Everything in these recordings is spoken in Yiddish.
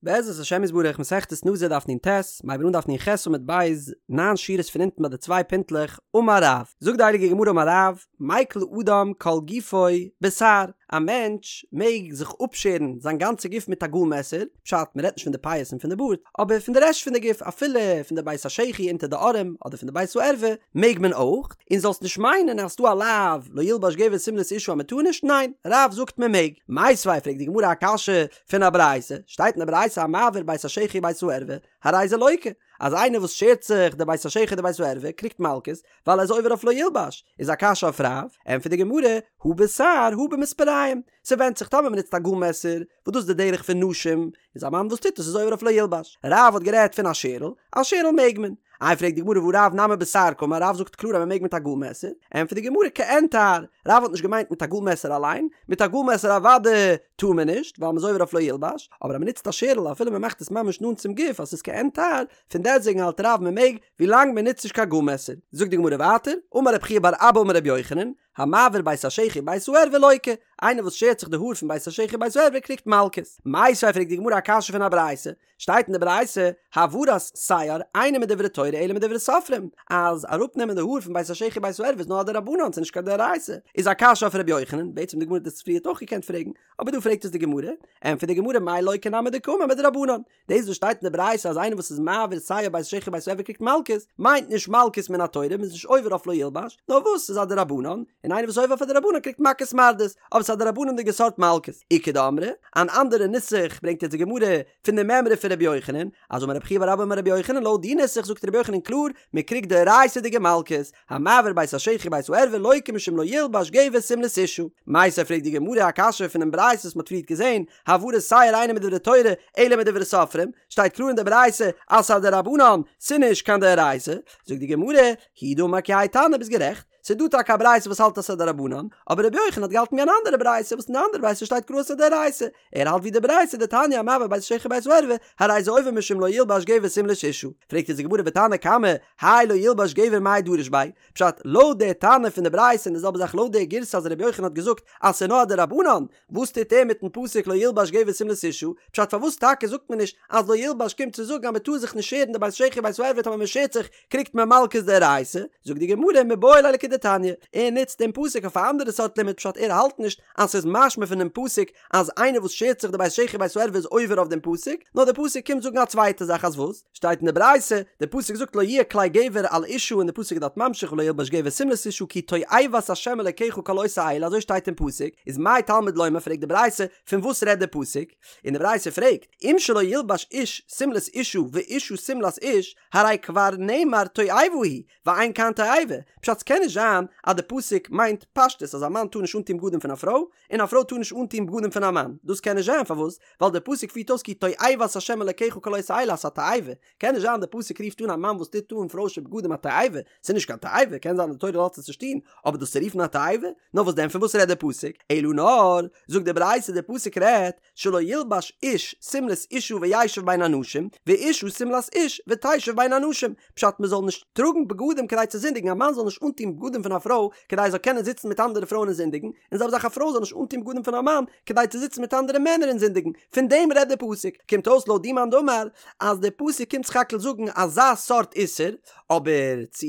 בעזרת השם יתברך מסכת נזיר דף נ"ט, מ'הייבן אן דף נ"ח עמוד ב', ניין שורות פון אונטן ביי די צוויי פינטלעך, אמר רב, זאגט די הייליגע גמרא אמר רב, מיקל אדם כל גופו בתער, א מענטש מעג זיך אפשערן זיין גאנצע גוף מיט א גאל מעסער, פשט, מ'רעדט נישט פון די פאות און פון די בארד, אבער פון די רעשט פון די גוף, אפילו פון די בית השחי אונטער די ארעם, אדער פון די בית הערווה, מעג מען אויך, און זאלסט נישט מיינען אז ס'דא א לאו לא ילבש גבר שמלת אשה אז מ'טאר נישט, ניין, רב זאגט מ'מעג. מיתיבי פרעגט די גמרא א קשיא פון א ברייתא, שטייט אין די ברייתא המעביר בית השחי בית הערווה, הרי זה לוקה, אז איינער וואס שערט זיך די בית השחי די בית הערווה קריגט מלקות, ווייל ער איז עובר אויף לא ילבש, איז א קשיא אויף רב, ענטפערט די גמרא, הא בתער הא במספריים, ס'ווענדט זיך טאמער מ'נוצט א גאל מעסער, וואס דאס איז די דרך פון נשים, איז א מאן וואס טוט עס איז עובר אויף לא ילבש. רב האט גערעדט פון א שערל, א שערל מעג מען. איי פרעגט די גמרא והא רב נמי בתער קאמר, רב זאגט קלאר אז מען מעג מיט א גאל מעסער, ענטפערט די גמרא כעין תער, רב האט נישט געמיינט מיט א גאל מעסער אליין, מיט א גאל מעסער אוודאי טאר מען נישט, ווייל מען איז עובר אויף לא ילבש, אבער אז מען נוצט א שערל אפילו מען מאכט עס ממש נאנט צום גוף אז ס'איז כעין תער, פון דעסטוועגן האלט רב מען מעג, ווילאנג מען נוצט נישט קיין גאל מעסער. זאגט די גמרא ווייטער, אמר רב חייא בר אבא אמר רבי יוחנן, המעביר בית השחי בית הערווה לוקה, איינער וואס שערט זיך די האר פון בית השחי בית הערווה קריגט מלקות. מיתיבי פרעגט די גמרא א קשיא פון א ברייתא, שטייט אין די ברייתא, העברת שער אינה מדברי תורה אלא מדברי סופרים, אז אראפנעמען די האר פון בית השחי בית הערווה איז נאר א דרבנן ס'איז נישט קיין דאורייתא, איז א קשיא אויף ר' יוחנן, בעצם די גמרא האט עס פריערט אויך געקענט פרעגן, אבער דא פרעגט עס די גמרא, ענטפערט די גמרא מאי לוקה נמי דקאמר מדרבנן, דאס וואס שטייט אין די ברייתא אז איינער וואס איז מעביר שער בית השחי בית הערווה קריגט מלקות, מיינט נישט מלקות מן התורה, מ'איז נישט עובר אויף לא ילבש, נאר וואס ס'איז א דרבנן, און איינער וואס איז עובר אויף א דרבנן קריגט מכות מרדות, אבער ס'איז א דרבנן'דיגע סארט מלקות. איכא דאמרי, אן אנדערע נוסח ברענגט יעצט די גמרא פון די מימרא פון רבי יוחנן, אז אמר רב חייא בר אבא אמר רבי יוחנן לויט די נוסח זאגט רבי יוחנן קלאר, מ'קריגט דאורייתא'דיגע מלקות, המעביר בית השחי בית הערווה לוקה משום לא ילבש גבר שמלת אשה. מיתיבי פרעגט די גמרא א קשיא פונעם ברייתא וואס מ'האט פריערט געזען, העברת שער אינה מדברי תורה אלא מדברי סופרים, שטייט קלאר אין די ברייתא אז ס'איז א דרבנן, ס'נישט קיין דאורייתא, זאגט די גמרא, הוא דאמר כי האי תנא ביסט גערעכט, ס'איז דא טאקע א ברייתא וואס האלט אז ס'איז א דרבנן, אבער רבי יוחנן האט געהאלטן ווי אן אנדערע ברייתא וואס אין די אנדערע ברייתא שטייט קלאר אז ס'איז א דאורייתא, ער האלט ווי די ברייתא דתניא המעביר בית השחי בית הערווה, הרי זה עובר משום לא ילבש גבר שמלת אשה. פרעגט אונז די גמרא ותנא קמא, האי לא ילבש גבר מאי דריש ביה? פשט, לויט די תנא פון די ברייתא און די זעלבע זאך לויט די גירסא אז רבי יוחנן האט געזאגט אז ס'איז נאר א דרבנן, וואס טוט ער מיטן פסוק לא ילבש גבר שמלת אשה? פשט פארוואס טאקע זאגט מען נישט אז לא ילבש קומט צו זאגן אז מען טאר זיך נישט שערן די בית השחי בית הערווה טאמער מען שערט זיך קריגט מען מלקות דאורייתא? זאגט די גמרא מיבעי ליה לכדתניא, ער נוצט דעם פסוק אויף א אנדערע סארט לימוד פשט ער האלט נישט אז ס'איז משמע פונעם פסוק אז איינער וואס שערט זיך די בית השחי בית הערווה איז עובר אויף דעם פסוק, נאר דער פסוק קומט זאגן א צווייטע זאך אז וואס? שטייט אין די ברייתא, דער פסוק זאגט לא יהיה כלי גבר על אשה און דער פסוק איז דארט ממשיך ולא ילבש גבר שמלת אשה כי תועבת ה' אלקיך כל עושה אלה אזוי שטייט אין פסוק, איז מה תלמוד לומר פרעגט די ברייתא פון וואס רעדט דער פסוק? און די ברייתא פרעגט אם שלא ילבש איש שמלת אשה ואשה שמלת איש הרי כבר נאמר תועבה היא ואין כאן תועבה, פשט ס'קען נישט זיין אז די פסוק מיינט פשטות אז א מאן טאר נישט אנטון בגדים פון א פרוי און א פרוי טאר נישט אנטון בגדים פון א מאן, דאס קען נישט זיין פארוואס? ווייל די פסוק פירט אויס כי תועבת ה' אלקיך כל עושה אלה אז ס'א תועבה, קען נישט זיין די פסוק רופט אן א מאן וואס טוט אן פרוישע בגדים א תועבה, ס'איז נישט קיין תועבה, קען זיין די תורה לאזט עס נישט טון, אבער דאס צו רופן א תועבה? נאר וואס דען פון וואס רעדט די פסוק? אלא נאר, זאגט די ברייתא די פסוק רעדט, שלא ילבש איש שמלת אשה וישב בין אנשים, ואשה שמלת איש ותשב בין אנשים, פשט מען זאל נישט טראגן בגדים כדי צו זינדיגן, א מאן זאל נישט אנטון בגדים פון א פרוי כדי ער זאל קענען זיצן מיט אנדערע פרויען און זינדיגן, און זעלבע זאך א פרוי זאל נישט אנטון בגדים פון א מאן כדי צו זיצן מיט אנדערע מענער און זינדיגן, פון דעם רעדט דער פסוק, קומט אויס לויט די מאן דאמר אז דער פסוק קומט סך הכל זאגן אזא סארט איסור, אבער צו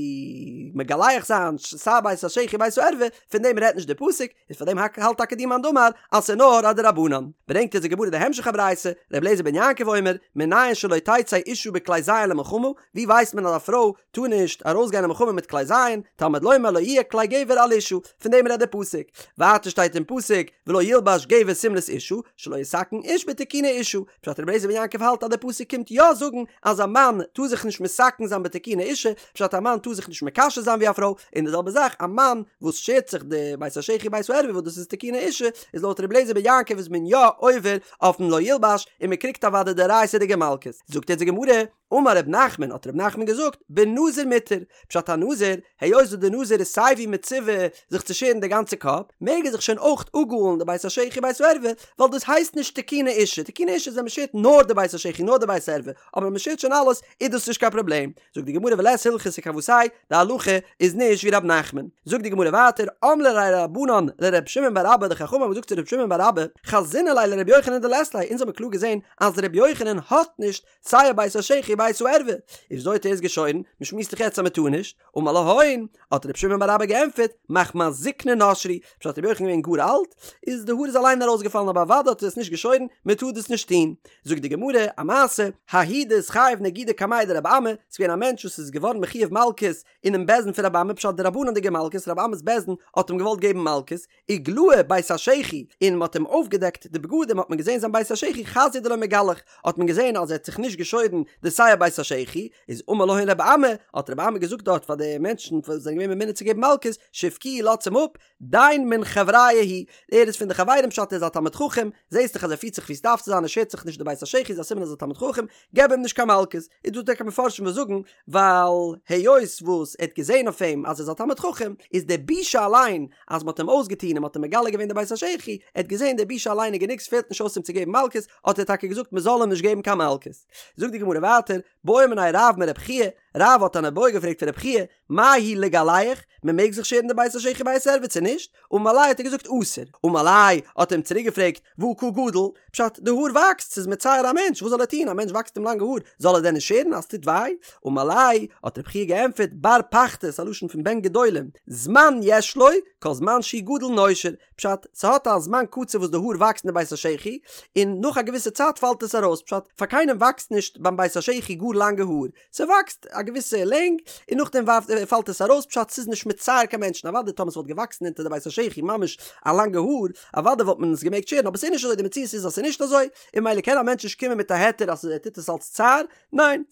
מגלח זיין שער בית השחי בית הערווה, פון דעם רעדט נישט דער פסוק, איז פאר דעם האלט טאקע די מאן דאמר אז ס'איז נאר א דרבנן. ברענגט אונז די גמרא די המשך הברייתא, ר' אליעזר בן יעקב אומר, מנין שלא תצא אשה בכלי זיין למלחמה, ווי ווייסט מען אז א פרוי טאר נישט ארויסגיין אין מלחמה מיט כלי זיין, תלמוד לומר לא יהיה כלי גבר על אשה, פון דעם רעדט דער פסוק. ווייטער שטייט אין פסוק, ולא ילבש גבר שמלת אשה, שלא יתקן איש בתיקוני אשה, פשט ר' אליעזר בן יעקב האלט אז דער פסוק קומט יא זאגן אז א מאן טאר זיך נישט מתקן זיין בתיקוני אשה, פשט א מאן טאר זיך נישט מקשט זיין ווי א פרוי, און די זעלבע זאך א מאן וואס שערט זיך די בית השחי בית הערווה וואס דאס איז תיקוני אשה, איז לויט ר' אליעזר בן יעקב איז מען יא עובר אויפן לא ילבש און מען קריגט אוודאי דאורייתא'דיגע מלקות. זאגט יעצט די גמרא, אמר ר' נחמן האט ר' נחמן געזאגט, בנזיר מותר, פשט א נזיר, היות וואס די נזיר נזיר איז סיי ווי מצווה זיך צו שערן די גאנצע קאפ, מעג ער זיך שוין אויך אפגאלן די בית השחי בית הערווה, ווייל דאס הייסט נישט תיקוני אשה, תיקוני אשה איז ווען מ'שערט נאר די בית השחי נאר די בית הערווה, אבער ווען מ'שערט שוין אלעס איז דאס נישט קיין פראבלעם. זאגט די גמרא ולית הלכתא כוותיה, די הלכה איז נישט ווי ר' נחמן. זאגט די גמרא ווייטער, אמרי ליה רבנן לר' שמעון בר אבא, די חכמים האבן געזאגט צו ר' שמעון בר אבא, חזינא ליה לר' יוחנן דלית ליה, אונז האבן קלאר געזען אז ר' יוחנן האט נישט שער בית השחי בית הערווה, איז וויאזוי האט ער עס געשוירן? מען שמועסט דאך יעצט אז מען טאר נישט. אמר להון, האט ר' שמעון בר אבא געענטפערט, מחמת זקנה נשרו, פשט ר' יוחנן געווען גאר אלט, איז די האר איז אליין ארויסגעפאלן אבער אוודאי האט ער עס נישט געשוירן, מען טאר דאס נישט טון. זאגט די גמרא, א מעשה, ההוא דאתחייב נגידא קמיה דרבי אמי, ס'איז געווען א מענטש וואס איז געווארן מחויב מלקות אינעם בית דין פון רבי אמי, פשט די רבנן'דיגע מלקות, רבי אמי'ס בית דין האט אים געוואלט געבן מלקות, איגלאי בית השחי, און מ'האט אים אויפגעדעקט די בגדים האט מען געזען זיין בית השחי חזייה דלא מגלח, האט מען געזען אז ער האט זיך נישט געשוירן די שער בית השחי, איז אמר להון רבי אמי, האט רבי אמי געזאגט דארט פאר די מענטשן וואס זענען געווען ממונה צו געבן מלקות, שבקוהו לאזטס אים אפ, דין מן חבריא הוא, ער איז פון די חברים פשט ער איז א תלמיד חכם, זעסט דאך אז ער פירט זיך ווי ס'דארף צו זיין ער שערט זיך נישט די בית השחי איז א סימן אז ער איז א תלמיד חכם, געב אים נישט קיין מלקות, איז דא טאקע מפרשים וואס זאגן ווייל היות וואס ער האט געזען אויף אים אז ער איז א תלמיד חכם, איז די בושה אליין אז מ'האט אים אויסגעטון און מ'האט אים מגלה געווען די בית השחי, ער האט געזען די בושה אליין איז גענוג ס'פעלט נישט אויס אים צו געבן מלקות, האט ער טאקע געזאגט מ'זאל אים נישט געבן קיין מלקות. זאגט די גמרא ווייטער, בעא מיניה רב מרב חייא, רב האט אן איבעיא געפרעגט פון רב חייא, מהו לגלח, מען מעג זיך שערן די בית השחי בית הערווה צו נישט? אמר ליה האט ער געזאגט אסור. אמר ליה האט ער אים צוריק געפרעגט, והא קא גדיל? פשט, די האר וואקסט, ס'איז מצער א מענטש, וואס זאל ער טון, א מענטש וואקסט אים לאנגע האר, זאל ער דען נישט שערן אז ס'טוט וויי? אמר ליה האט רב חייא געענטפערט, בר פחתי, ס'איז א לשון פון בן גדולים, זמן יש לו, כל זמן שהוא גדל נושר, פשט, ס'האט א זמן קצוב וואס די האר וואקסט אין די בית השחי, און נאך א געוויסע צייט פאלט עס ארויס, פשט, פאר קיינעם וואקסט נישט ביים בית השחי גאר לאנגע האר, ס'וואקסט א געוויסע לענג און נאכדעם ווארפט פאלט עס ארויס פשט ס'איז נישט מצער קיין מענטשן אוודאי טאמער ס'וואלט געוואקסן אונטער די בית השחי ממש א לאנגע האר אוודאי וואלט מען עס געמעגט שערן אבער ס'איז נישט אזוי די מציאות איז אז ס'איז נישט אזוי און ממילא קען א מענטש נישט קומען מיט א היתר אז ער טוט עס אלס צער ניין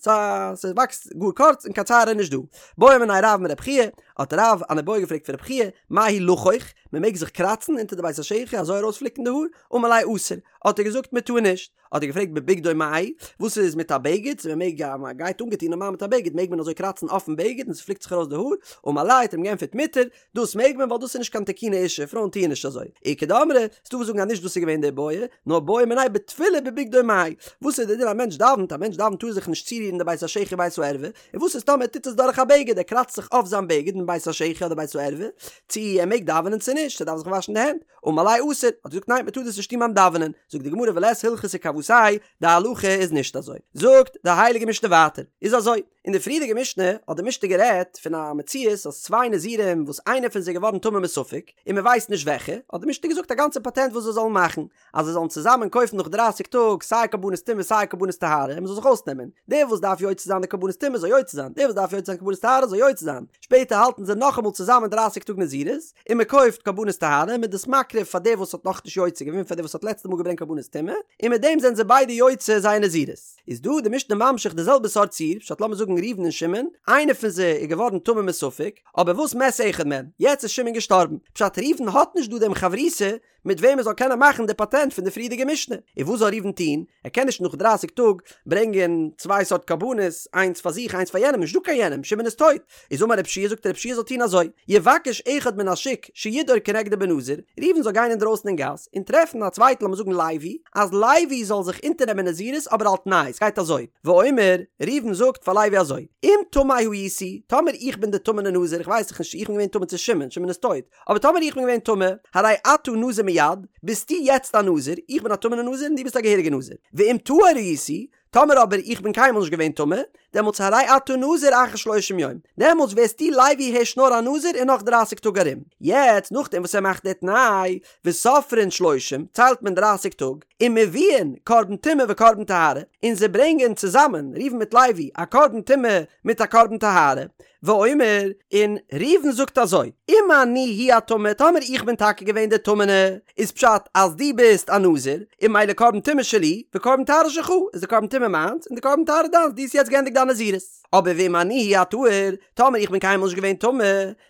ס'וואקסט גאר קורץ און קיין צער איז נישט דא. בעא מיניה רב מרב חייא האט רב אן איבעיא געפרעגט פון רב חייא מהו לחוך מ'מעג זיך קראצן אונטער די בית השחי אזוי ארויספליקן די האר אמר ליה אסור האט ער געזאגט מ'טאר נישט. האט ער געפרעגט בבגדו מהו, וואס איז מיט א בגד, צו מען מעג אז מען גייט אנגעטון נארמאל מיט א בגד מעג מען אזוי קראצן אויפן בגד און ס'פליקט זיך ארויס די האר, אמר ליה האט ער אים געענטפערט מותר, דאס מעג מען ווייל דאס איז נישט קיין תיקוני אשה, פרויען טוען נישט אזוי. איכא דאמרי, ס'דא וואס זאגן אז נישט דאס איז געווען די איבעיא, נאר בעו מיניה בתפילה בבגדו מהו, וואס איז די דין א מענטש דאווענט, א מענטש דאווענט טאר זיך נישט צורירן די בית השחי בית הערווה, און וואס איז טאמער ער טוט עס דורך א בגד, ער קראצט זיך אויף זיין בגד אין בית השחי אדער בית הערווה, צו ער מעג דאווענען צו נישט, צו ער דארף זיך וואשן די הענט. אמר ליה אסור, האט ער געזאגט ניין מען טאר דאס נישט טון ביים דאווענען, זאגט די גמרא ולית הלכתא כוותיה, די הלכה איז נישט אזוי, זאגט די הייליגע משנה ווייטער, איז אזוי, אין די פריערדיגע משנה האט די משנה גערעדט פון א מציאות אז צוויי נזירים וואס איינער פון זיי איז געווארן טמא מספק און מען ווייסט נישט וועלכע, האט די משנה געזאגט א גאנצע פאטענט וואס זיי זאלן מאכן, אז זיי זאלן צוזאמען קויפן נאך דרייסיג טאג סיי קרבנות טומאה סיי קרבנות טהרה און מען זאל זיך אויסנעמען, דער וואס דארף יוצא זיין די קרבנות טומאה זאל יוצא זיין, דער וואס דארף יוצא זיין קרבנות טהרה זאל יוצא זיין, שפעטער האלטן זיי נאכאמאל צוזאמען דרייסיג טאג נזירות, און מען קויפט קרבנות טהרה און מען איז דאס מקריב פאר דער וואס האט נאכנישט יוצא געווען פאר דער וואס האט לעצטע מאל געברענגט קרבנות טומאה, און מיט דעם זענען זיי ביידע יוצא זייער נזירות. איז דא די משנה ממשיך די זעלבע סארט ציור, פשט לאמיר זאגן ראובן און שמעון, איינער פון זיי איז געווארן טמא מספק, אבער וואס מת אחד מהם, יעצט איז שמעון געשטארבן, פשט ראובן האט נישט דא דעם חברותא מיט וועם ער זאל קענען מאכן די פאטענט פון די פריערדיגע משנה. און וואס זאל ראובן טון? ער קען נישט נאך דרייסיג טאג ברענגען צוויי סארט קרבנות, איינס פאר זיך איינס פאר יענעם, נישטא קיין יענעם, שמעון איז טויט. איז אמר רב יהושע זאגט רב יהושע זאל טון אזוי, יבקש אחד מן השוק שידור כנגדו בנזיר, ראובן זאל גיין אינדרויסן אין גאס און טרעפן א צווייטן לאמיר זאגן לוי, אז לוי זאל זיך אונטערנעמען נזירות אבער על תנאי, ס'גייט אזוי, ואומר, ראובן זאגט פאר לוי אזוי, אם טמא הייתי, טאמער איך בין די טמא'נע נזיר, איך ווייס דאך נישט צו איך בין געווען טמא צו שמעון, שמעון איז טויט, אבער טאמער איך בין געווען טמא, הרי אתה נזיר מיד, ביסטו יעצט א נזיר, איך בין א טמא'נע נזיר און דו ביסט א געהעריגע נזיר. ואם טהור הייתי, טאמער אבער איך בין קיינמאל נישט געווען טמא, דעמאלטס הרי אתה נזיר אחר שלושים יום, דעמאלטס ווערסטו לוי הערשט נאר א נזיר אין נאך דרייסיג טאג ארום. יעצט נאכדעם וואס ער מאכט די תנאי, וסופרין שלושים, ציילט מען דרייסיג טאג, ומביאין קרבן טומאה וקרבן טהרה, און זיי ברענגען צוזאמען, ראובן מיט לוי, א קרבן טומאה מיט א קרבן טהרה, ואומר, און ראובן זאגט אזוי, אם אני הוא הטמא, טאמער איך בין טאקע געווען דער טמא'נע, איז פשט אז דו ביסט א נזיר, און ממילא קרבן טומאה שלי, וקרבן טהרה שלך, איז די קרבן טומאה מיינס, און די קרבן טהרה דיינס, דו האסט יעצט געענדיגט דיין נזירות. אבער ואם אני הוא הטהור, טאמער איך בין קיינמאל נישט געווען טמא,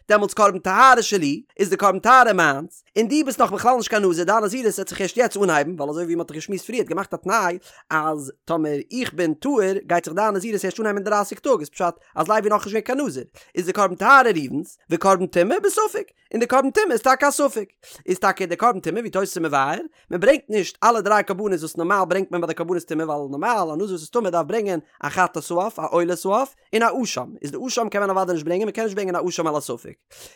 דעמאלטס קרבן טהרה שלי, איז די קרבן טהרה מיינס, און דו ביסט נאך בכלל נישט קיין נזיר, דיין נזירות וועט זיך ערשט יעצט אנהייבן, ווייל אזוי ווי מען האט דאך געשמועסט פריער האט געמאכט א תנאי אז טאמער איך בין טהור גייט זיך דיין נזירות ערשט אנהייבן אין דרייסיג טאג, איז פשט אז לוי נאכנישט געווען קיין נזיר. איז די קרבן טהרה ראובן'ס, וקרבן טומאה בספק, און די קרבן טומאה איז טאקע א ספק. איז טאקע די קרבן טומאה ווי תוס' איז מבאר, מען ברענגט נישט אלע דריי קרבנות וואס נארמאל ברענגט מען ביי די קרבנות טומאה ווייל נארמאל א נזיר וואס איז טמא דארף ברענגען א חטאת העוף א עולת העוף און א אשם, איז די אשם קען מען אוודאי נישט ברענגען מען קען נישט ברענגען א אשם על הספק.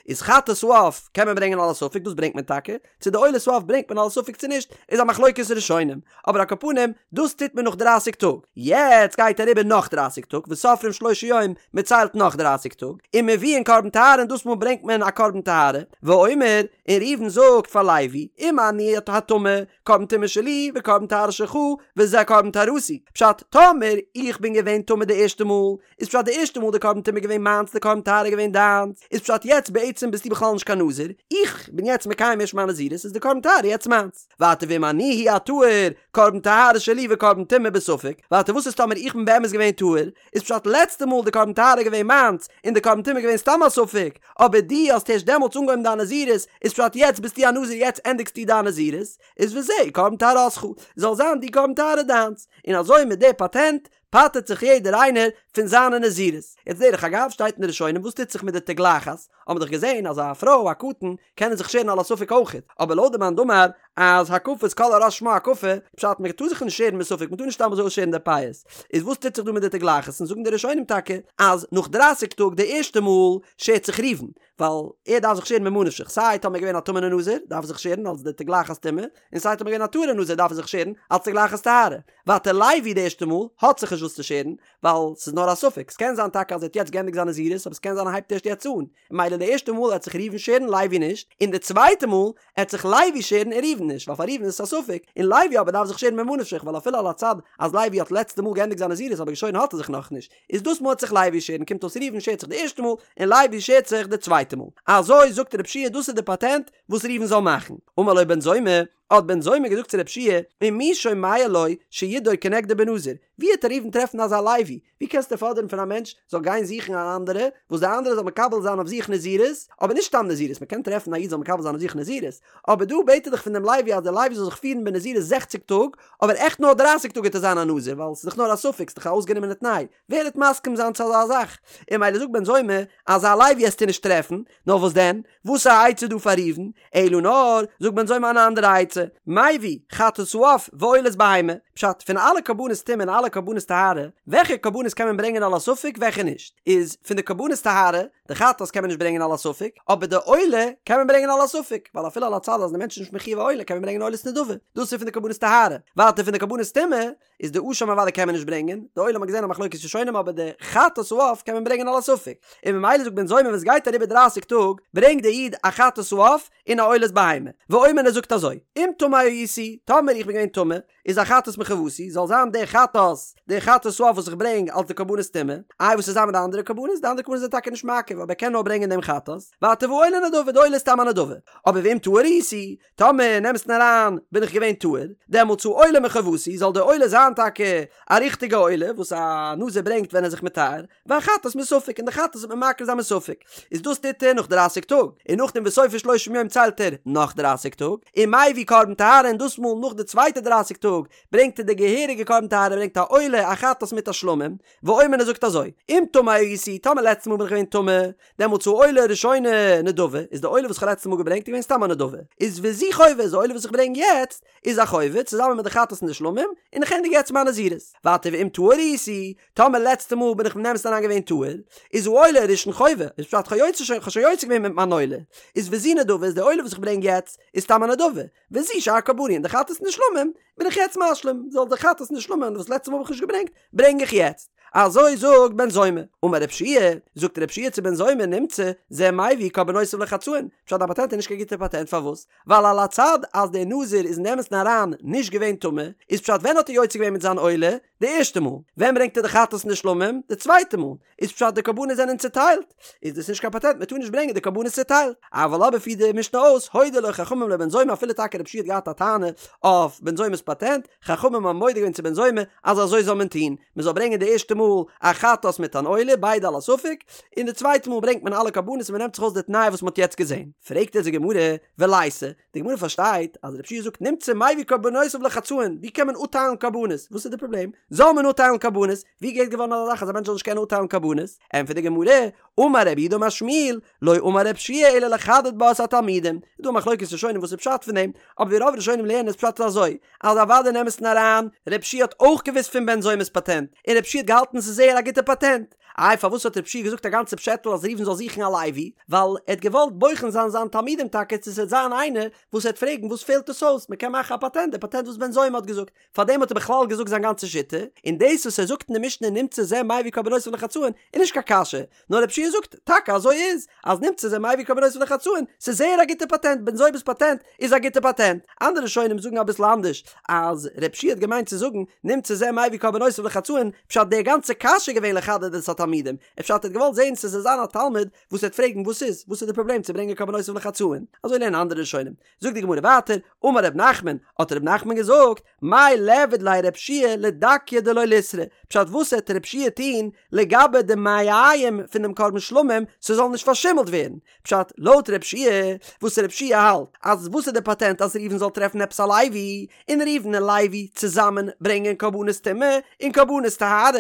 איז חטאת העוף קען מען ברענגען על הספק דאס ברענגט מען טאקע, צו די עולת העוף ברענגט מען על הספק צו נישט איז א מחלוקת ראשונים, אבער על כל פנים דאס טוט מען נאך דרייסיג טאג, יעצט גייט אריבער נאך דרייסיג טאג וסופרים שלושים יום, מען ציילט נאך דרייסיג טאג, ומביאין קרבן טהרה און דאס מאל ברענגט מען א קרבן טהרה, ואומר, און ראובן זאגט פאר לוי, אם אני הטמא, קרבן טומאה שלי וקרבן טהרה שלך, וזה קרבן טהרתי, פשט, טאמער איך בין געווען טמא די ערשטע מאל, איז פשט די ערשטע מאל די קרבן טומאה געווען מיינס די קרבן טהרה געווען דיינס, איז פשט יעצט בעצם ביסטו בכלל נישט קיין נזיר, איך בין יעצט מקיים ערשט מיין נזירות איז די קרבן טהרה יעצט מיינס. ווייטער ואם אני הוא הטהור, קרבן טהרה שלי וקרבן טומאה בספק, ווייטער וואס איז טאמער איך בין באמת געווען טהור, איז פשט לעצטע מאל די קרבן טהרה געווען מיינס און די קרבן טומאה געווען סתם א ספק, אבער דו האסט הערשט דעמאלטס אנגעהויבן דיין נזירות, איז פשט יעצט ביסטו א נזיר יעצט ענדיגסטו דיין נזירות, איז וזה קרבן טהרתך, זאל זיין די קרבן טהרה דיינס, און אזוי מיט די פאטענט פטר'ט זיך יעדער איינער פון זיינע נזירות. יעצט דרך אגב שטייט אין די ראשונים וואס טוט זיך מיט די תגלחת, האבן מיר דאך געזען אז א פרוי א קטן קענען זיך שערן על הספק אויכעט, אבער לויט די מאן דאמר אז הקפת כל הראש שמה הקפה, פשט מען טאר זיך נישט שערן מספק מען טאר נישט סתם אזוי אויסשערן די פאות, איז וואס טוט זיך דא מיט די תגלחת, און זאגן די ראשונים טאקע אז נאך דרייסיג טאג די ערשטע מאל שערט זיך ראובן, ווייל ער דארף זיך שערן ממה נפשך, סיי טאמער געווען א טמא'נע נזיר דארף ער זיך שערן אלס די תגלחת טומאה, און סיי טאמער געווען א טהור'ע נזיר דארף ער זיך שערן אלס תגלחת טהרה. ווייטער לוי די ערשטע מאל האט זיך נישט וואס צו שערן, ווייל ס'איז נאר א ספק, ס'קען זיין טאקע אז ער האט יעצט געענדיגט זיין נזירות אבער ס'קען זיין ער הייבט ערשט יעצט אן, ממילא די ערשטע מאל עט זיך ראובן שערן לוי נישט, און די צווייטע מאל עט זיך לוי שערן און ראובן נישט, ווייל פאר ראובן איז עס א ספק, און לוי אבער דארף זיך שערן ממה נפשך ווייל אפילו על הצד אז לוי האט לעצטע מאל געענדיגט זיין נזירות אבער געשוירן האט ער זיך נאכנישט, איז דאס מאל עט זיך לוי שערן קומט אויס ראובן שערט זיך די ערשטע מאל און לוי שערט זיך די צווייטע מאל. אזוי זאגט רב שיע דאס איז די פאטענט וואס ראובן זאל מאכן. אמר לו בן זומא, האט בן זומא געזאגט צו רב שיע, ומי שומע לו שידור כנגדו בנזיר, ווי העט ראובן טרעפן אזא לוי? ווי קענסטו פאדערן פון א מענטש זאל גיין זוכן אן אנדערע, וואס די אנדערע זאל מקבל זיין אויף זיך נזירות, אבער נישט סתם נזירות, מען קען טרעפן א איד זאל מקבל זיין אויף זיך נזירות, אבער דא בעט ער דאך פון דעם לוי אז דער לוי זאל זיך פירן בנזירות זעכציג טאג, אבער עכט נאר דרייסיג טאג גייט ער זיין א נזיר, ווייל ס'איז דאך נאר א ספק, ס'איז דאך א אויסגענומענע תנאי, ווער העט מסכים זיין צו אזא זאך? און ממילא זאגט בן זומא, אזא לוי העסטו נישט טרעפן, נאר וואס דען? וואס א עצה דא פאר ראובן? אלא נאר, זאגט בן זומא אן אנדערע עצה, מביא חטאת העוף ועולת בהמה, פשט, פון אלע קרבנות טומאה און אלע קרבנות טהרה, וועלכע קרבנות קען מען ברענגען על הספק וועלכע נישט? איז פון די קרבנות טהרה, די חטאת קען מען נישט ברענגען על הספק, אבער די עולה קען מען ברענגען על הספק, ווייל אפילו על הצד אז די מענטש איז נישט מחויב א עולה קען מען ברענגען עולת נדבה, דאס איז פון די קרבנות טהרה, ווייטער פון די קרבנות טומאה, איז די אשם אוודאי קען מען נישט ברענגען, די עולה האט מען געזען א מחלוקת ראשונים אבער די חטאת העוף קען מען ברענגען על הספק, און ממילא זאגט בן זומא ווען עס גייט אריבער דרייסיג טאג ברענגט די איד א חטאת העוף און א עולת בהמה, ואומר ער זאגט אזוי, אם טמא הייתי, טאמער איך בין געווען טמא, איז החטאת מחובתי, זאל זיין די חטאת, די חטאת העוף וואס איך ברענג אלס די קרבנות טומאה, איי וואס איז זיין מיט די אנדערע קרבנות, די אנדערע קרבנות זענען טאקע נישט מעכב אבער ער קען נאר ברענגען דעם חטאת, ווייטער והעולה נדבה, די עולה איז סתם א נדבה, אבער ואם טהור הייתי, טאמער אין אמת'ן אריין בין איך געווען טהור, דעמאלטס העולה מחובתי, זאל די עולה זיין טאקע א ריכטיגע עולה וואס א נזיר ברענגט ווען ער איז זיך מטהר, והחטאת מספק, און די חטאת וועט מען מקריב זיין מספק. איז דאס טוט ער נאך דרייסיג טאג, און נאכדעם וסופר שלושים יום ציילט ער נאך דרייסיג טאג, ומביא קרבן טהרה און דאס מאל נאך די צווייטע דרייסיג טאג ברענגט ער די געהעריגע קרבן טהרה, ער ברענגט א עולה, א חטאת מיט א שלמים, ואומר ער זאגט אזוי, אם טמא הייתי, טאמער לעצטע מאל בין איך געווען טמא, דעמאלטס העולה הראשונה נדבה, איז די עולה וואס איך האב לעצטע מאל געברענגט איז געווען סתם א נדבה, איז וזו חובה, איז די עולה וואס איך ברענג יעצט איז א חובה, צוזאמען מיט די חטאת און די שלמים, און איך ענדיג יעצט מיין נזירות. ווייטער ואם טהור הייתי, טאמער לעצטע מאל בין איך אין אמת'ן אריין געווען טהור, איז העולה הראשון חובה, איז פשט כ'האב יוצא שוין, כ'האב שוין יוצא געווען מיט מיין עולה, איז וזו נדבה, איז די עולה וואס איך ברענג יעצט איז סתם א נדבה, וזו שאר קרבני און די חטאת און די שלמים בין איך יעצט משלים, זאל די חטאת און די שלמים וואס לעצטע מאל האב איך נישט געברענגט, ברענג איך יעצט. אזוי זאגט בן זומא. אמר רב שיע, זאגט רב שיע צו בן זומא, נמצא, זה מביא קרבנותיו לחצאין. פשט דיין פאטענט איז נישט קיין גוטע פאטענט פארוואס? ווייל על הצד אז דער נזיר איז אין אמת'ן אריין נישט געווען טמא, איז פשט ווען האט ער יוצא געווען מיט זיין עולה? די ערשטע מאל. ווען ברענגט ער די חטאת און די שלמים? די צווייטע מאל. איז פשט די קרבנות זענען צוטיילט? איז דאס נישט קיין פאטענט מען טאר נישט ברענגען די קרבנות צוטיילט. אבל אבער פירט די משנה אויס הודו לו חכמים לבן זומא אפילו טאקע רב שיע האט געהאט א טענה אויף בן זומא'ס פאטענט, חכמים האבן מודה געווען צו בן זומא אז אזוי זאל מען טון, מען זאל ברענגען די ערשטע מאל. מאל א חטאת מיט אן עולה, ביידע על הספק, און די צווייטע מאל ברענגט מען אלע קרבנות און מען נעמט זיך אויס די תנאי וואס מען האט יעצט געזען. פרעגט אונז די גמרא, וליתא, די גמרא פארשטייט אז רבי יהושע זאגט נמצא מביא קרבנותיו לחצאין, ווי קען מען אפטיילן קרבנות? וואס איז די פראבלעם? זאל מען אפטיילן קרבנות? ווי געהערט געווארן אזא זאך אז א מענטש זאל נישט קענען אפטיילן קרבנות? ענטפערט די גמרא, אמר רב יהודה אמר שמואל, לא אמר רבי יהושע אלא לחדד בה את התלמידים. איז דא א מחלוקת ראשונים וואס איז פשט פון דעם, אבער ווי רוב ראשונים לערנען איז פשט אזוי, אז אוודאי אין אמת'ן אריין, רבי יהושע האט אויך געוואוסט פון בן זומא'ס פאטענט, און רבי יהושע האט געהאלטן ס'איז זייער א גוטע פאטענט. איי פארוואס האט רבי יהושע געזאגט א גאנצע פשעטל אז ראובן זאל זוכן א לוי? ווייל ער האט געוואלט בוחן זיין זיין תלמידים טאקע צו ס'וועט זיין איינער וואס וועט פרעגן וואס פעלט עס אויס, מ'קען מאכן א פאטענט, די פאטענט וואס בן זומא האט געזאגט. פארדעם האט ער בכלל געזאגט זיין גאנצע שיטה, און דאס וואס ער זאגט אין די משנה נמצא זה מביא קרבנותיו לחצאין איז נישט קיין קשיא, נאר רבי יהושע זאגט, טאקע אזוי איז, אז נמצא זה מביא קרבנותיו לחצאין, ס'איז זייער א גוטע פאטענט, בן זומא'ס פאטענט איז א גוטע פאטענט. אנדערע ראשונים זאגן אביסל אנדערש, אז רבי יהושע האט געמיינט צו זאגן, נמצא זה מביא קרבנותיו לחצאין, פשט די גאנצע קשיא איז געווען לחדד את התלמידים, פשט ער האט געוואלט זען צו ס'זאל זיין א תלמיד וואס וועט פרעגן וואס איז, וואס איז די פראבלעם צו ברענגען קרבנותיו לחצאין, אזוי לערנען אנדערע ראשונים. זאגט די גמרא ווייטער, אמר ר' נחמן, האט ר' נחמן געזאגט, מאי ליעביד ליה רב יהושע לדקיה דלא ליסרו, פשט וואס העט רב יהושע טוהן לגבי די מעיים פון דעם קרבן שלמים ס'זאל נישט פארשימלט ווערן, פשט לויט רב יהושע, וואס רב יהושע האלט אז וואס איז די פאטענט אז ראובן זאל טרעפן עפעס א לוי, און ראובן און לוי צוזאמען ברענגען קרבנות טומאה און קרבנות טהרה,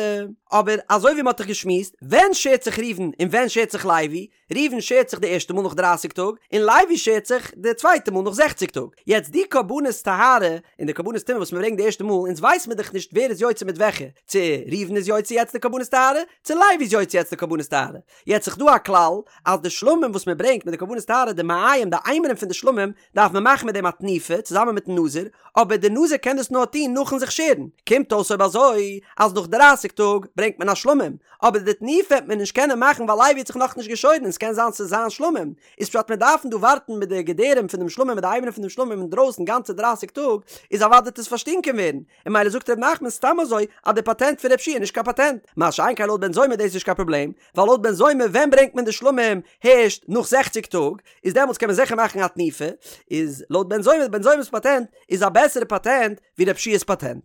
אבער אזוי ווי מ'האט דאך געשמועסט, ווען שערט זיך ראובן און ווען שערט זיך לוי? ראובן שערט זיך די ערשטע מאל נאך דרייסיג טאג, און לוי שערט זיך די צווייטע מאל נאך זעכציג טאג. יעצט די קרבנות טהרה און די קרבנות טומאה וואס מען ברענגט די ערשטע מאל, אונז ווייס מיר דאך נישט ווער איז יוצא מיט וועלכע, צו ראובן איז יוצא יעצט די קרבנות טהרה, צו לוי איז יוצא יעצט די קרבנות טהרה. יעצט איז דא א כלל, אז די שלמים וואס מען ברענגט מיט די קרבנות טהרה, די מעיים, די אימורים פון די שלמים, דארף מען מאכן מיט דעם א תנופה, צוזאמען מיטן נזיר, אבער די נזיר קען דאס נאר טון נאכן זיך שערן, קומט אויס אויב אזוי, אז נאך דרייסיג טאג ברענגט מען א שלמים, אבער די תנופה וועט מען נישט קענען מאכן ווייל לוי האט זיך נאכנישט געשוירן און ס'קען זיין ס'איז זיין שלמים, איז פשט מיר דארפן דא ווארטן מיט די געדערים פון דעם שלמים מיט די אימורים פון דעם שלמים אינדרויסן גאנצע דרייסיג טאג, איז אוודאי וועט עס פארשטינקען ווערן, און ממילא זאגט ר' נחמן סתם אזוי אז די פאטענט פון רב יהושע איז נישט קיין פאטענט, מה שאין כן לויט בן זומא איז דאס נישט קיין פראבלעם, ווייל לויט בן זומא ווען ברענגט מען די שלמים הערשט נאך זעכציג טאג, איז דעמאלטס קען מען זיכער מאכן א תנופה, איז לויט בן זומא, בן זומא'ס פאטענט איז א בעסערע פאטענט ווי רב יהושע'ס פאטענט.